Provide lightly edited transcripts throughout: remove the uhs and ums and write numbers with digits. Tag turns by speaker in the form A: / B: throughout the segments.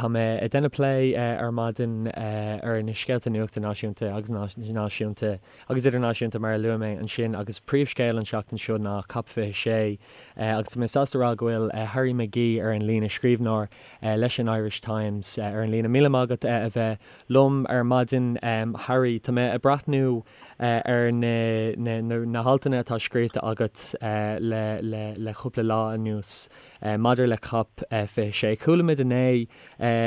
A: Tá mé ag déanamh plé ar maidin ar na scéalta nuachta náisiúnta agus náisiúnta agus idirnáisiúnta mar a luaigh mé ansin agus príomhscéal an tseachtain seo ná Cop 26 agus tá mé sásta a rá go bhfuil Harry McGee ar an líne, scríbhneoir leis an Irish Times ar an líne. Míle maith agat a bheith liom ar maidin Harry. Tá mé ag breathnú ar na haltanna atá scríofa agat le cúpla lá anuas. Maidir le Cop 26, chuala muid inné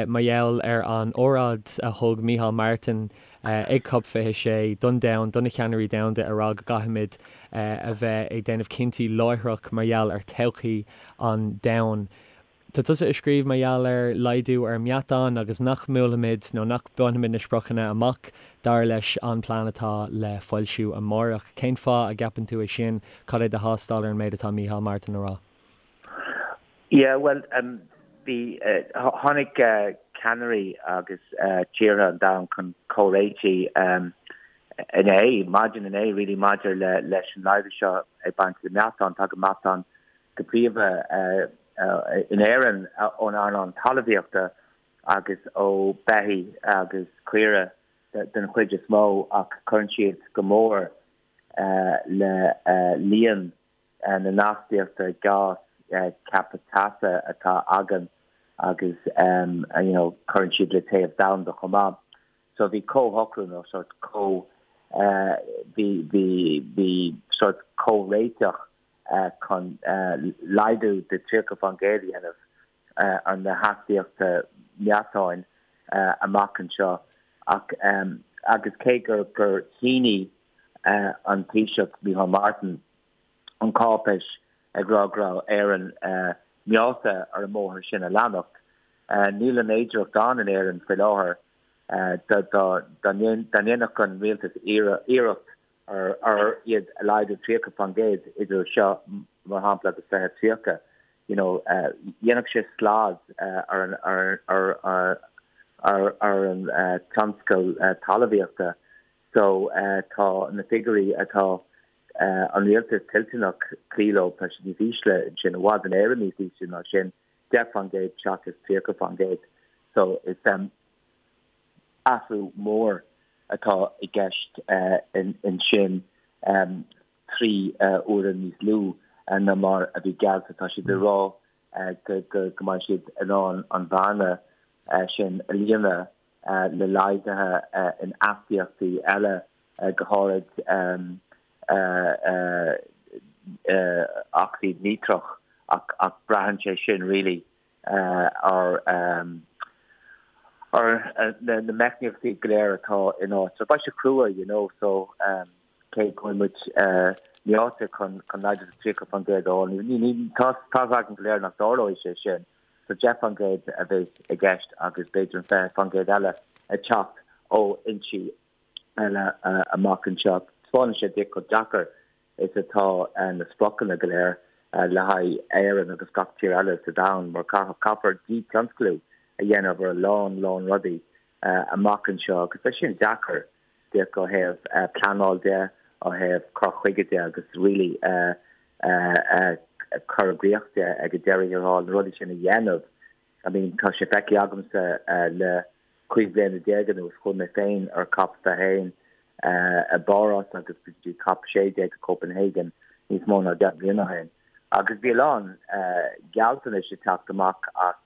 A: mar gheall ar an óráid a thug Micheál Martin ag Cop 26 don domhan, do na ceannairí domhanda, ag rá go gcaithfimid a bheith ag déanamh cinntí láithreach mar gheall ar todhchaí an domhain. Tá tusa ag scríobh mar gheall ar laghdú ar meatán agus nach mbuailfimid nó nach mbainfimid na spriocanna amach dar leis an plean atá le foilsiú amárach. Cén fáth a gceapann tú é sin? Cad é do thástáil ar an méid atá Micheál Martin a rá?
B: Yeah, bhuel, bhí, tháinig ceannairí agus tíortha an domhain chun comhréitigh inné, maidin inné really, maidir le leis an laghdú seo ag baint le meatán. Tagann meatán go príomha in Éirinn ón earnáil talmhaíochta agus ó beithígh agus caoire den chuid is mó ach cuireann siad go mór le líon na n-astaíochta gás ceaptha teasa atá againn agus you know cuireann siad le téamh domhanda chomh maith. So bhí comhshocrú nó sort comh bhí bhí bhí sort comhréiteach chun laghdú de 30% a dhéanamh ar na hastaíochta meatáin amach anseo ach agus cé gur gur shínigh an Taoiseach Micheál Martin an cáipéis ag rá go raibh Éirinn meáite ar an mbóthar sin a leanacht. Níl an fhéidearthacht ann in Éirinn faoi láthair dá ndéanfadh an rialtas iarracht ar iad a laghdú 30% idir seo mar shampla agus 2030. You know, dhéanfadh sé slad ar an ar an tionscal talmhaíochta. So tá na figiúirí atá an rialtas toilteanach cloí leo, tá siad níos ísle ansin, i bhfad in Éirinn níos ísle ná sin, 10% seachas 30%. So is athrú mór atá i gceist ansin, 3 huaire níos lú ná mar a bhí geallta. Tá siad ag rá go mbeidh siad in ann an bhearna sin a líonadh le laghduithe in astaíochtaí eile, go háirid ocsaíd níotreach, ach braitheann sé sin really ar na meicníochtaí go léir atá in áit. So beidh sé crua, you know, so cé go bhfuil muid meáite chun laghdú de 30% a fháil, tá a fhios againn go léir nach dtarlóidh sé sin. So 10% a bheidh i gceist agus b'fhéidir an 20% eile ag teacht ó fhoinsí eile amach anseo. Taispeánann sé duit chomh deacair is atá na spriocanna go léir le haghaidh Éireann agus gach tír eile sa domhan mar caithfear dí-tionsclú a dhéanamh ar a lán, lán rudaí amach anseo agus beidh sin deacair díreach ó thaobh pleanáil de, ó thaobh cur chuige de agus really cur i gcrích de ag an deireadh thiar thall, na rudaí sin a dhéanamh. I mean tá sé feicthe agamsa le 15 bliana anuas, chuaigh mé féin ar Cop 21 i bPáras agus go dtí Cop 16 i Copenhagen níos mó ná 10 mbliana ó shin agus bhí a lán gealltanais ag teacht amach as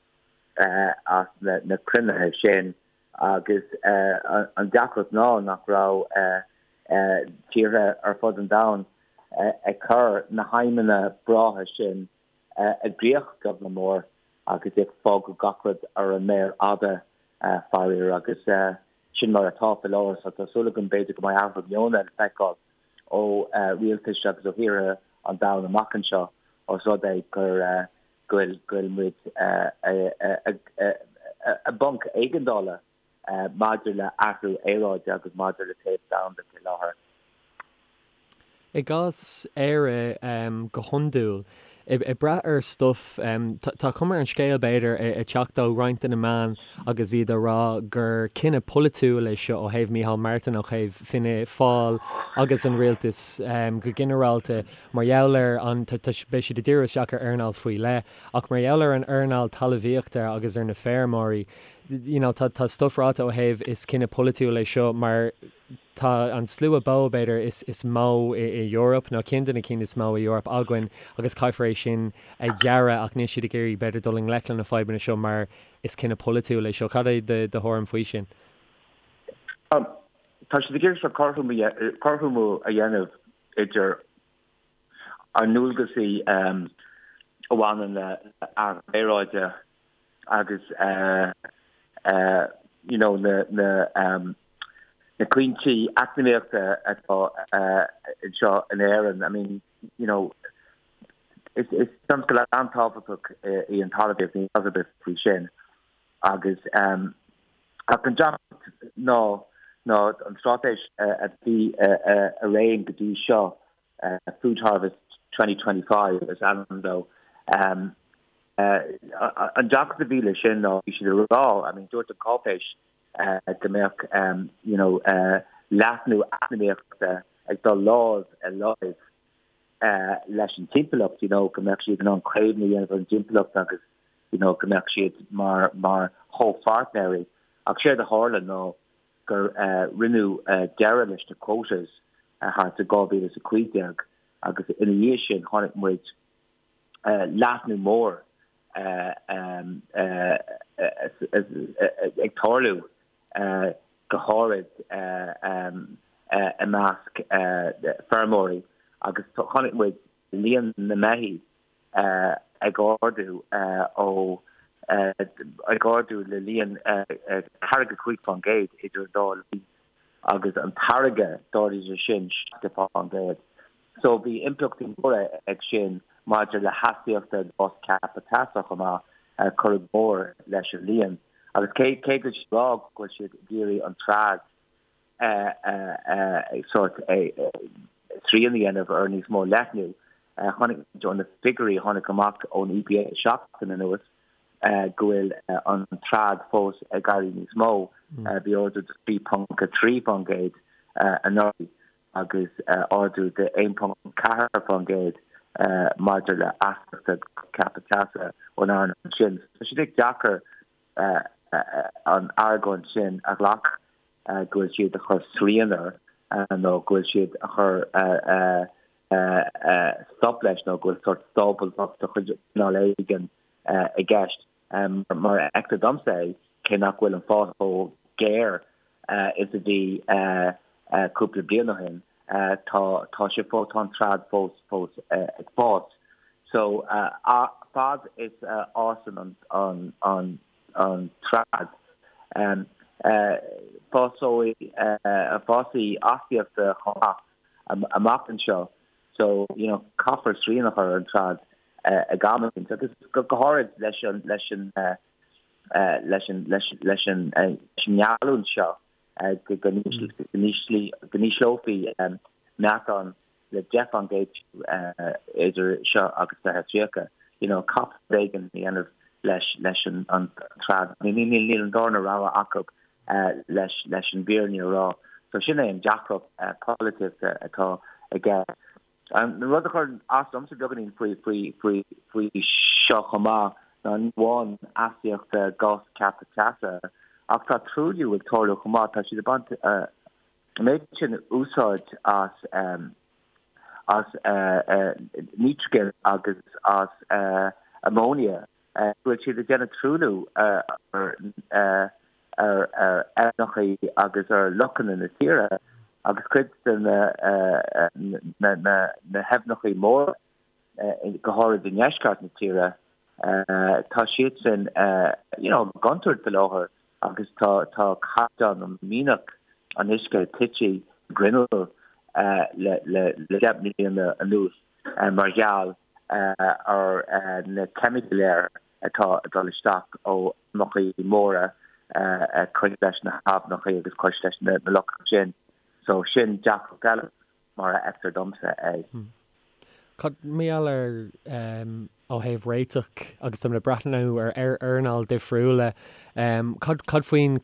B: as na cruinnithe sin Agus an deacracht ná nach raibh tíortha ar fud an domhain ag cur na haidhmeanna breátha sin i gcrích beag ná mór agus ag fágáil gach rud ar an méar fhada, faraor. Agus sin mar atá faoi láthair. So tá súil agam b'fhéidir go mbeidh athrú meoin le feiceáil ó rialtais agus ó thíortha an domhain amach anseo os rud é gur go bhfuil muid i bponc éigeandála maidir le athrú aeráide agus maidir le téamh domhanda faoi láthair.
A: I gcás Éire, go hiondúil, ag brath ar stuif, tá cuma ar an scéal, b'fhéidir, ag teacht ó roinnt de na meáin agus iad ag rá gur cinneadh polaitiúil é seo ó thaobh Micheál Martin, ó thaobh Fianna Fáil agus an rialtas go ginearálta. Mar gheall ar an, beidh siad ag díriú isteach ar earnáil faoi leith, ach mar gheall ar an earnáil talmhaíochta agus ar na feirmeoirí. you know, tá tá stuff ráite ó thaobh is cinneadh polaitiúil é seo mar tá an slua bó, b'fhéidir, is is mó i i Eoraip nó ceann de na cinn is mó i Eoraip againn agus caithfear é sin a ghearradh ach níl siad ag iarraidh b'fhéidir dul i ngleic le na fadhbanna seo mar is cinneadh polaitiúil é seo. Cad é do do thuairim faoi sin?
B: Tá siad ag iarraidh seo cothromú a dhéanamh idir ár ndualgasaí a bhaineann le athrú aeráide agus you know na na na cúinsí eacnamaíochta atá anseo in Éirinn. I mean, you know, is is tionscal an-tábhachtach í an talmhaíocht, níl amhras ar bith faoi sin. Agus ach an deacracht ná ná an straitéis a bhí i réim go dtí seo, Food Harvest 2025 is ainm dó, an deacracht a bhí leis sin ná bhí siad ag rá, I mean dúirt an cáipéis go mbeadh you know leathnú eacnamaíochta ag dul lámh i láimh leis an timpeallacht, you know go mbeadh siad in ann caomhnú a dhéanamh ar an dtimpeallacht agus you know go mbeadh siad mar mar chomhpháirtnéirí. Ach séard a tharla ná gur rinneadh deireadh leis na quotas thart i 2015 agus ina dhiaidh sin chonaic muid leathnú mór ag tarlú go háirid i measc feirmeoirí agus chonaic muid líon na mbeithígh ag ardú ó ag ardú le líon 45% idir an dá linn agus an táirgeadh d'ardaigh sé sin 70%. So bhí impleachtaí móra ag sin maidir le hastaíochta gás ceaptha teasa chomh maith, cuireadh go mór leis an líon. Agus cé cé go bhfuil siad ag rá go bhfuil siad ag iarraidh an trad sórt srian a dhéanamh ar níos mó leathnú. Chonaic muid ó na figiúirí a tháinig amach ón EPA seachtain anuas go bhfuil an trad fós ag éirí níos mó. Bhí ardú de 3.3% anuraidh agus ardú de 1.4% maidir le astaíochta ceaptha teasa ón earnáil sin. Tá sé deacair an argóint sin a ghlacadh. go bhfuil siad a chur srian air nó go bhfuil siad a chur stop leis nó go bhfuil sórt sábháilteacht de chuid cineál éigin i gceist. Mar a fheictear domsa é, cé nach bhfuil an fás chomh géar is a bhí cúpla bliain ó shin, tá tá sé fós, tá an trad fós fós ag fás. So fad is a fhásann an an an trad. Fásóidh fásfaidh astaíochta chomh maith amach anseo so you know caithfear srian a chur ar an trad ag am éicint agus go háirid leis an leis an leis an leis leis an ngeallúint seo go n-ísleofaí meatán le 10% idir seo agus 2030. You know, caithfear rud éigin a dhéanamh leis leis an an trad. Níl níl an darna rogha acu leis leis an bhfírinne a rá. So sin é an deacracht polaitíochta atá aige. An rud a chuireann as domsa beagáinín faoi faoi faoi faoi seo chomh maith ná ní amháin astaíochta gás ceaptha teasa ach tá truailliú ag tarlú chomh maith. Tá siad ag baint An méid sin úsáid as as nítrigin agus as ammonia go bhfuil siad ag déanamh truailliú ar ar aibhneacha agus ar lochanna na tíre agus cuid de na na na haibhneacha móra go háirid i ndeisceart na tíre tá siadsan you know i gcontúirt faoi láthair agus tá tá caighdeán nó mianach an uisce tite i ngrinneall le le le 10 mbliana anuas mar gheall ar na ceimicí go léir atá ag dul isteach ó fheirmeacha móra cois leis na haibhneacha agus cois leis na lochanna sin. So sin deacracht eile mar a fheictear domsa é.
A: Cad mar gheall ar. Ó thaobh réiteach, agus táimid ag breathnú ar earnáil difriúla, cad cad faoin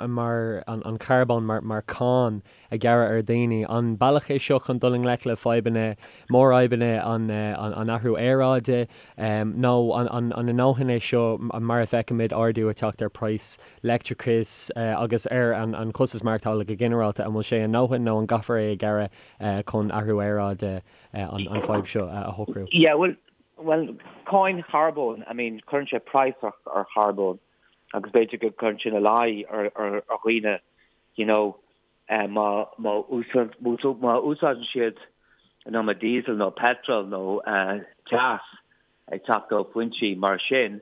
A: mar an carbón mar mar cáin a ghearradh ar dhaoine? An bealach é seo chun dul i ngleic le fadhbanna, mórfhadhbanna an an athrú aeráide? Nó an an an i ndóthain é seo mar a bhfeicimid ardú ag teacht ar praghas leictreachais agus ar an an costas maireachtála go ginearálta? An bhfuil sé i ndóthain nó an gcaithfear é a ghearradh chun athrú aeráide an fadhb seo a shocrú?
B: Yeah, well, well, cáin charbóin, I mean, cuireann sé praghas ar, ar charbón agus b'fhéidir go gcuireann sin ina luí ar, ar, ar dhaoine, you know, eh, má, má, úsáid, má úsáideann siad an iomad diesel nó petrol nó eh, teas ag teacht ó foinsí mar sin,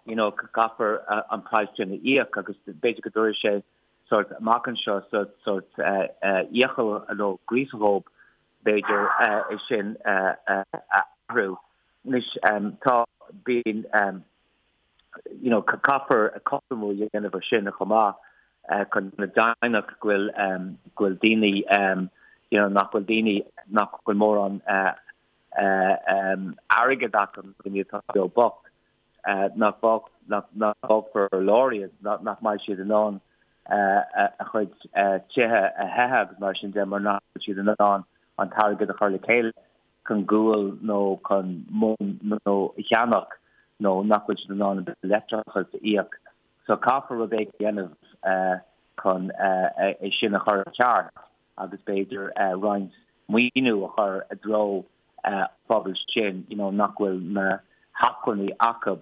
B: you know, caithfear eh, an praghas sin a íoc agus b'fhéidir go dtabharfaidh sé sort amach anseo sort, sort eh, eh, iachall nó gríosadh dhóibh b'fhéidir, é sin a athrú. Anois, tá, bíonn, you know, caithfear cothromú a dhéanamh ar sin chomh maith chun déanamh deimhneach go bhfuil, go bhfuil daoine, you know, nach bhfuil daoine, nach bhfuil mórán airgead acu, daoine atá beo bocht, nach bhfágfar ar lár iad, nach mbeidh siad in ann a chuid tithe a théamh agus mar sin de mar nach bhfuil siad in ann an t-airgead a chur le chéile chun gual nó chun móin nó a cheannach nó nach bhfuil siad in ann an bille leictreachais a íoc. So caithfear rud éigin a dhéanamh chun é sin a chur i gceart agus b'fhéidir roinnt maoiniú a chur i dtreo phobal sin you know nach bhfuil na hacmhainní acu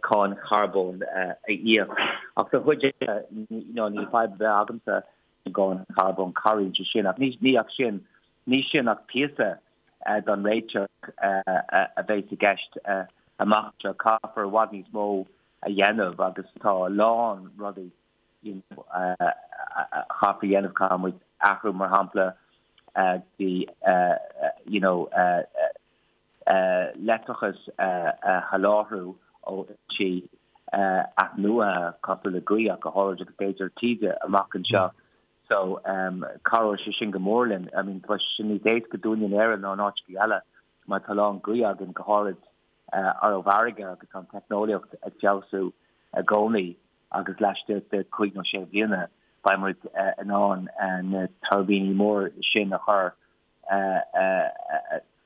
B: cáin charbóin a íoc. Ach don chuid eile you know níl fadhb ar bith agamsa an gcáin charbóin, cabhraíonn sé sin ach ní ní ach sin ní sin ach píosa don réiteach a bheas i gceist amach anseo. Caithfear i bhfad níos mó a dhéanamh agus tá a lán rudaí you know, a chaithfear a dhéanamh, caithfidh muid athrú mar shampla go dtí you know, leictreachas a sholáthrú ó fhoinsí athnuaithe cosúil le gaoth ach go háirid agus b'fhéidir taoide amach anseo. So cabhróidh sé sin go mór linn. I mean, tá sé níos éasca dúinne in Éirinn ná in áiteacha eile mar tá a lán gaoth againn go háirid ar an bhfarraige agus tá an teicneolaíocht ag feabhsú i gcónaí. agus laistigh de chúig nó sé bliana beidh muid in ann na tuirbíní mór sin a chur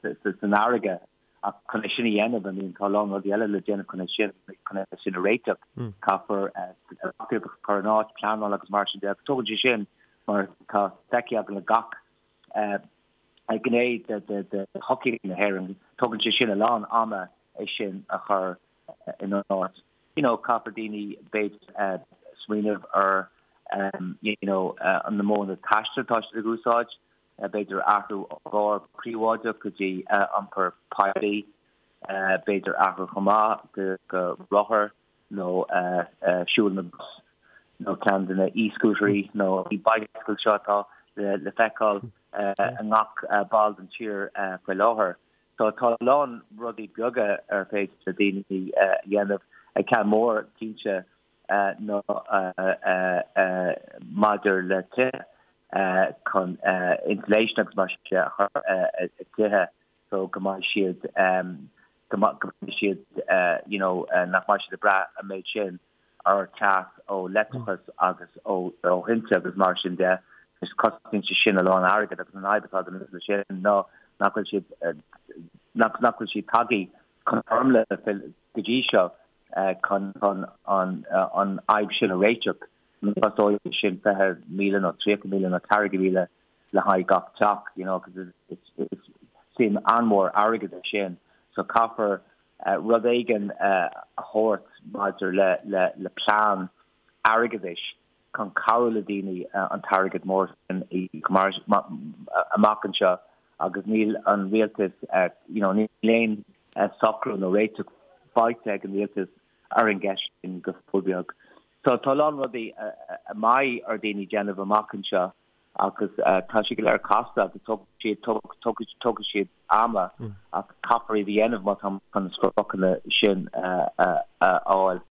B: san fharraige. Ach chun é sin a dhéanamh, I mean, tá a lán rudaí eile le déanamh chun é sin, chun é sin a réiteach. Caithfear reachtaíocht a chur in áit, pleanáil agus mar sin de. Agus tógann sé sin, mar tá feicthe againn le gach gné de shochaí na hÉireann, tógann sé sin a lán ama é sin a chur in áit. You know, caithfear daoine b'fhéidir smaoineamh ar you know na modhanna taistil atá siad ag úsáid, b'fhéidir athrú ó gcarr príobháideach go dtí iompar poiblí, b'fhéidir athrú chomh maith go rothar nó siúl na gcos nó ceann de na e-scooterí nó e-bicycles seo atá le feiceáil i ngach ball den tír faoi láthair. So tá a lán rudaí beaga ar féidir le daoine a dhéanamh. Ceann mór cinnte ná maidir le tithe chun insulation agus mar sin de a chur i dtithe so go mbeidh siad go mbeidh siad you know nach mbeidh siad ag brath an méid sin ar teas ó leictreachas agus ó thinte agus mar sin de. Is cosnaíonn sé sin a lán airgid agus an fhadhb atá againn leis sin ná nach bhfuil siad nach nach bhfuil siad tagtha chun foirmle go dtí seo chun chun an an fhadhb sin a réiteach. Costóidh sin 20,000 nó 30,000 nó 40,000 le haghaidh gach teach, you know, because it's it's suim an-mhór airgid é sin. So caithfear rud éigin a thabhairt maidir le plean airgeadais chun cabhrú le daoine an t-airgead mór sin a íoc amach anseo agus níl an rialtas, you know, níl aon socrú nó réiteach faighte ag an rialtas ar an gceist sin go fóill beag. So tá a lán rudaí a mbeidh ar daoine déanamh amach anseo agus tá sé go léir casta agus tógfaidh siad ama ach caithfear iad a dhéanamh má tá chun na spriocanna sin a fháil.